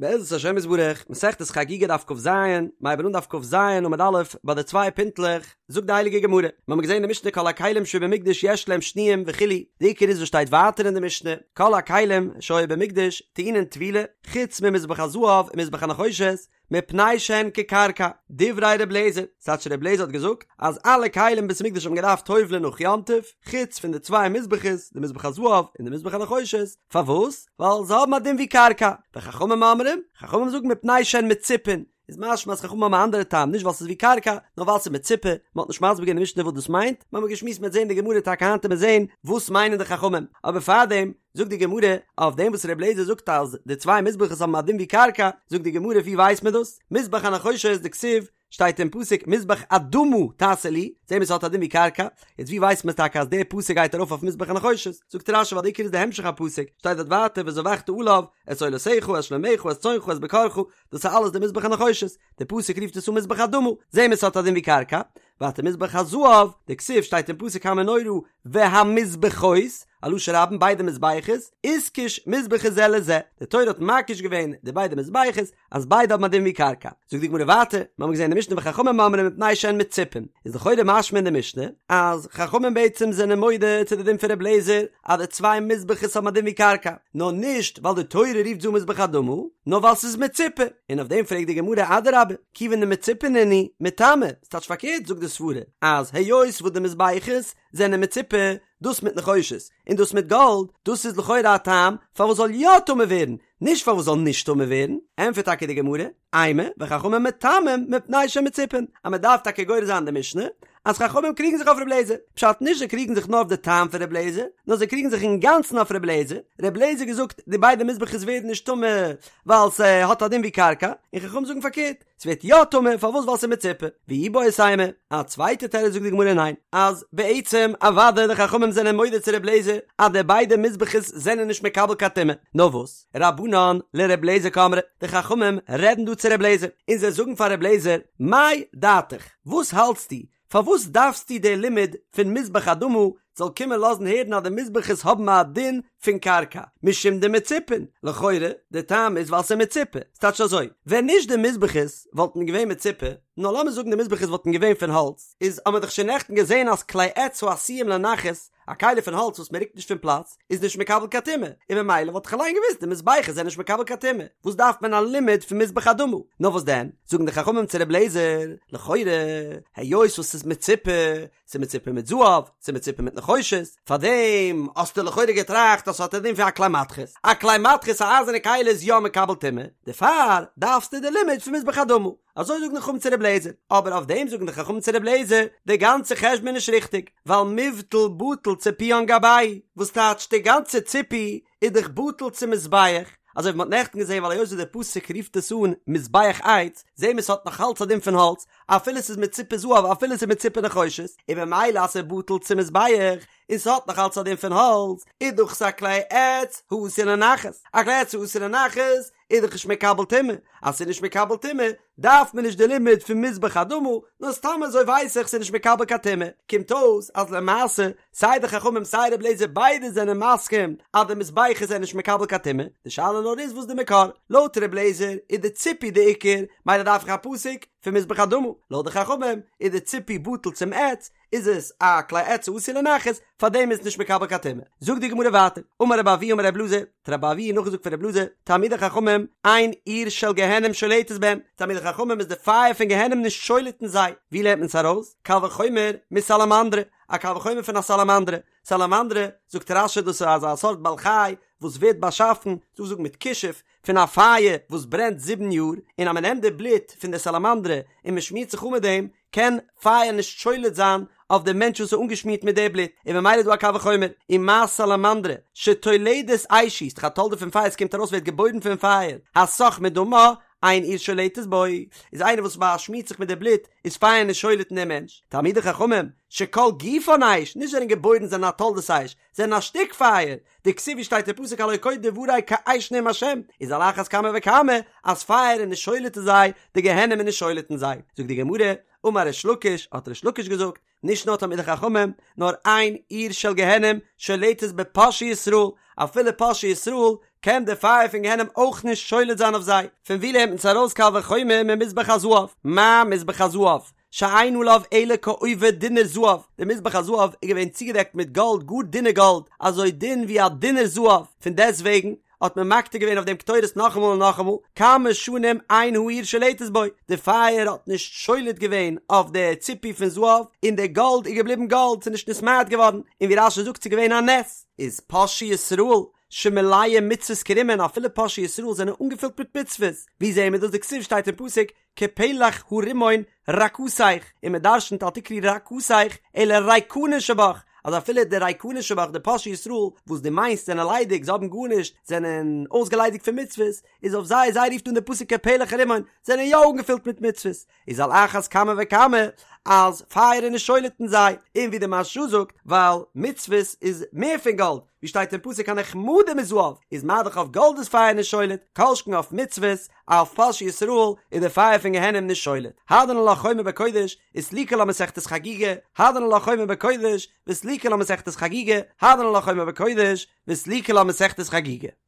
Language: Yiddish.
בעזרת השם יתברך, מסכת חגיגה דף כז, מ'הייבן אן דף כז עמוד א', ביי די צוויי פינטלעך, זאגט די הייליגע גמרא, מיר האבן געזען אין די משנה כל הכלים שבמקדש יש להם שניים וכו', די עיקר איז וואס שטייט ווייטער אין די משנה, כל הכלים שהיו במקדש טעונין טבילה, חוץ ממזבח הזהב ומזבח הנחושת, מפני שהן כקרקע, דברי ר' לעזער, ס'טייטש ר' לעזער האט געזאגט אז אלע כלים אין בית המקדש האבן געדארפט טובל'ען נאך יום טוב, חוץ פון די צוויי מזבחות, די מזבח הזהב און די מזבח הנחושת, פארוואס? ווייל זיי האבן א דין ווי קרקע, וחכמים אומרים, חכמים זאגן מפני שהן מצופין, איז משמע אז חכמים האבן א אנדערע טעם, נישט ווייל ס'איז ווי קרקע, נאר ווייל ס'איז מצופה, מ'האט נישט מסביר געווען אין משנה וואס דאס מיינט, מ'האמיר געשמועסט מ'וועט זען אין די גמרא טאקע היינט וועט מען זען וואס מיינען די חכמים, אבער פארדעם זאגט די גמרא, אויף דעם וואס ר' אליעזר זאגט אז די צוויי מזבחות האבן א דין ווי קרקע, זאגט די גמרא ווי ווייסט מען דאס? מזבח הנחושת דכתיב, שטייט אין פסוק מזבח אדמה תעשה לי, זעהן מיר ס'האט א דין ווי קרקע, יעצט ווי ווייסט מען טאקע אז דער פסוק גייט ארויף אויף מזבח הנחושת? זאגט רשי ווייל די עיקר איז די המשך הפסוק, שטייט דארט ווייטער וזבחת עליו את עולותיך את שלמיך את צאנך את בקרך, דאס איז אלעס די מזבח הנחושת, די פסוק רופט עס אן מזבח אדמה, זעהן מיר ס'האט א דין ווי קרקע, ווייטער מזבח הזהב, דכתיב שטייט אין פסוק המנורה והמזבחות, א לשון רבים ביידע מזבחות, איתקש מזבחות זה לזה, די תורה האט מקיש געווען די ביידע מזבחות, אז ביידע האבן א דין ווי קרקע. זאגט די גמרא ווייטער, מיר האבן געזען אין די משנה וחכמים אומרים מפני שהן מצופין, איז לכאורה משמע אין די משנה אז חכמים בעצם זענען מודה צו די דין פון ר' אליעזר אז די צוויי מזבחות האבן א דין ווי קרקע, נאר נישט ווייל די תורה רופט זיי אן מזבח אדמה, נאר ווייל ס'איז מצופה. און אויף דעם פרעגט די גמרא אדרבה, כיוון דמצופין נינהו מיטמאי, ס'טייטש פארקערט זאגט די סברה אז היות וואס די מזבחות זענען מצופה, דאס מיט נחושת און דאס מיט גאלד, דאס איז לכאורה א טעם פארוואס זאל יא טמא ווערן, נישט פארוואס זאל נישט טמא ווערן, ענטפערט טאקע די גמרא, אימא, וחכמים מטמאים מפני שהן מצופין, אז מען דארף טאקע גורס זיין די משנה, אז חכמים קריגן זיך אויף ר' לעזער, פשט נישט זיי קריגן זיך נאר אויף די טעם פון ר' לעזער, נאר זיי קריגן זיך אינגאנצן אויף ר' לעזער, ר' לעזער געזאגט די ביידע מזבחות ווערן נישט טמא ווייל ס'האט א דין ווי קרקע, און חכמים זאגן פארקערט, ס'ווערט יא טמא, פארוואס ווייל ס'איז מצופה, ואיבעית אימא, א צווייטע תירוץ זאגט די גמרא ניין, אז בעצם אוודאי די חכמים זענען מודה צו ר' לעזער אז די ביידע מזבחות זענען נישט מקבל קיין טומאה, נאר וואס, רבנן לר' לעזער קאמרי, די חכמים רעדן דא צו ר' לעזער, און זיי זאגן פאר ר' לעזער, מאי דעתיך, וואס האלטסטו, פארוואס דארפסטו די לימוד פון מזבח אדמה זאל קומען לאזן הערן אז די מזבחות האבן א דין פון קרקע משום דמצופין? לכאורה די טעם איז ווייל ס'איז מצופה, ס'טייטש אזוי, ווען נישט די מזבחות וואלטן געווען מצופה, נאר לאמיר זאגן די מזבחות וואלטן געווען פון האלץ, איז האמיר דאך שוין נעכטן געזען אז כלי עץ העשויים לנחת, א כלי פון האלץ וואס מ'רוקט נישט פון פלאץ, איז נישט מקבל קיין טומאה, און ממילא וואלט איך אליין געוואוסט די מזבחות זענען נישט מקבל קיין טומאה, וואס דארף מען א לימוד פון מזבח אדמה? נאר וואס דען, זאגן די חכמים צו ר' לעזער, לכאורה, היות וואס ס'איז מצופה, ס'איז מצופה מיט זהב, ס'איז מצופה מיט נחושת, פארדעם האסטו לכאורה געטראכט אז ס'האט א דין פון א כלי מתכות, א כלי מתכות א אייזערנע כלי איז יא מקבל טומאה, דערפאר דארפסטו די לימוד פון מזבח אדמה. אזוי זאגן די חכמים צו ר' לעזער, אבער אויף דעם זאגן די חכמים צו ר' לעזער, די גאנצע חשבון איז נישט ריכטיג, ווייל מיבטל בטל ציפויין גבייהו, וואס טייטש די גאנצע ציפוי איז דאך בטל צום מזבח, אזוי ווי מ'האט נעכטן געזען ווייל היות ווי דער פסוק רופט עס אן מזבח עץ, זעהן מיר ס'האט נאך אלץ א דין פון האלץ, אפילו ס'איז מצופה זהב אפילו ס'איז מצופה נחושת, און ממילא אז ס'איז בטל צום מזבח, און ס'האט נאך אלץ א דין פון האלץ, איז דאך עס א כלי עץ העשוי לנחת, א כלי עץ העשוי לנחת איז דאך נישט מקבל טומאה, אז ס'איז נישט מקבל טומאה דארף מען נישט די לימוד פון מזבח אדמה, נאר סתם אזוי ווייס איך ס'איז נישט מקבל קיין טומאה, קומט אויס אז למעשה סיי די חכמים סיי רבי אליעזר ביידע זענען מסכים אז די מזבחות זענען נישט מקבל קיין טומאה, די שאלה נאר איז וואס די מקור, לויט רבי אליעזר איז די ציפוי די עיקר, מילא דארף איך א פסוק פון מזבח אדמה, לויט די חכמים איז די ציפוי בטל צום עץ, איז עס א כלי עץ העשוי לנחת, פאר דעם איז נישט מקבל קיין טומאה. זאגט די גמרא ווייטער, אמר רבי אבהו אמר רבי אלעזר, האט רבי אבהו נאכגעזאגט פון רבי אלעזר, תלמידי חכמים, אין אור של גיהנום שולטת בהם, תלמידי חכמים איז די פייער פון גיהנום נישט שולט אין זיי, ווי לערנט מען עס ארויס? קל וחומר מסלמנדרא, א קל וחומר פון א סאלאמאנדרע, סאלאמאנדרע, זאגט רש"י דאס איז אזא סארט בעל חי וואס ווערט באשאפן, דא זאגט מיט כישוף, פון א פייער וואס ברענט זיבן יאר, און אז מען נעמט די בלוט פון די סאלאמאנדרע און מען שמירט זיך אן מיט דעם, קען פייער נישט שולט זיין אויף די מענטש וואס איז אנגעשמירט מיט די בלוט, און ממילא איז דא א קל וחומר, ומה סלמנדרא שתולדת אש היא, ס'דאך א תולדה פון פייער, ס'קומט ארויס ווערט געבוירן פון פייער, הסך מדמה, אין אור שולטת בו, איז איינער וואס באשמירט זיך מיט די בלוט, איז פייער נישט שולט אין דעם מענטש, תלמידי חכמים, שכל גופן אש, נישט זענען געבוירן זענען א תולדת אש, זענען א שטיק פייער, דכתיב ווי שטייט אין פסוק הלא כה דברי כאש נאם השם, איז על אחת כמה וכמה אז פייער איז נישט שולט אין זיי, די גיהנום איז נישט שולט אין זיי. זאגט די גמרא, אמר ריש לקיש, האט ריש לקיש געזאגט, נישט נאר תלמידי חכמים, נאר אין אור של גיהנום שולטת בפושעי ישראל, אפילו פושעי ישראל. קען די פייער פון גיהנום אויך נישט שולט זיין אויף זיי. פון ווי לערנט מען עס ארויס קל וחומר ממזבח הזהב? מה מזבח הזהב? שאין עליו אלא כעובי דינר זהב, די מזבח הזהב איז געווען צוגעדעקט מיט גאלד, גאר דינע גאלד, אזוי דין ווי א דינר זהב, פון דעסטוועגן האט מען מקטיר געווען אויף דעם קטורת נאכאמאל און נאכאמאל, כמה שנים אין האור שולטת בו, די פייער האט נישט שולט געווען אויף די ציפוי פון זהב, און די גאלד איז געבליבן גאלד, ס'איז נישט נתמעט געווארן, און ווי רש"י זאגט ס'איז געווען א נס. איז פושעי ישראל שמלאים מצוות כרימון, אפילו פושעי ישראל זענען אנגעפילט מיט מצוות, ווי זעהן מיר דאס דכתיב שטייט אין פסוק כפלח הרימון רקתך, און מען דרשנ'ט אל תקרי רקתך אלא ריקנין שבך, אז אפילו די ריקנין שבך די פושעי ישראל וואס דו מיינסט זענען ליידיג זיי האבן גארנישט זענען אויסגעליידיגט פון מצוות, איז אויף זיי זיי רופט אן די פסוק כפלח הרימון זענען יא אנגעפילט מיט מצוות, איז על אחת כמה וכמה אז פייער איז נישט שולט אין זיי, און ווי די מהרש"א זאגט ווייל מצוות איז מער פון גאלד, ווי שטייט אין פסוק הנחמדים מזהב, איז מה דאך אויף גאלד איז פייער נישט שולט, כל שכן אויף מצוות, אויף פושעי ישראל איז די פייער פון גיהנום נישט שולט. הדרן עלך חומר בקודש, וסליקא לה מסכת חגיגה, הדרן עלך חומר בקודש, וסליקא לה מסכת חגיגה, הדרן עלך חומר בקודש, וסליקא לה מסכת חגיגה.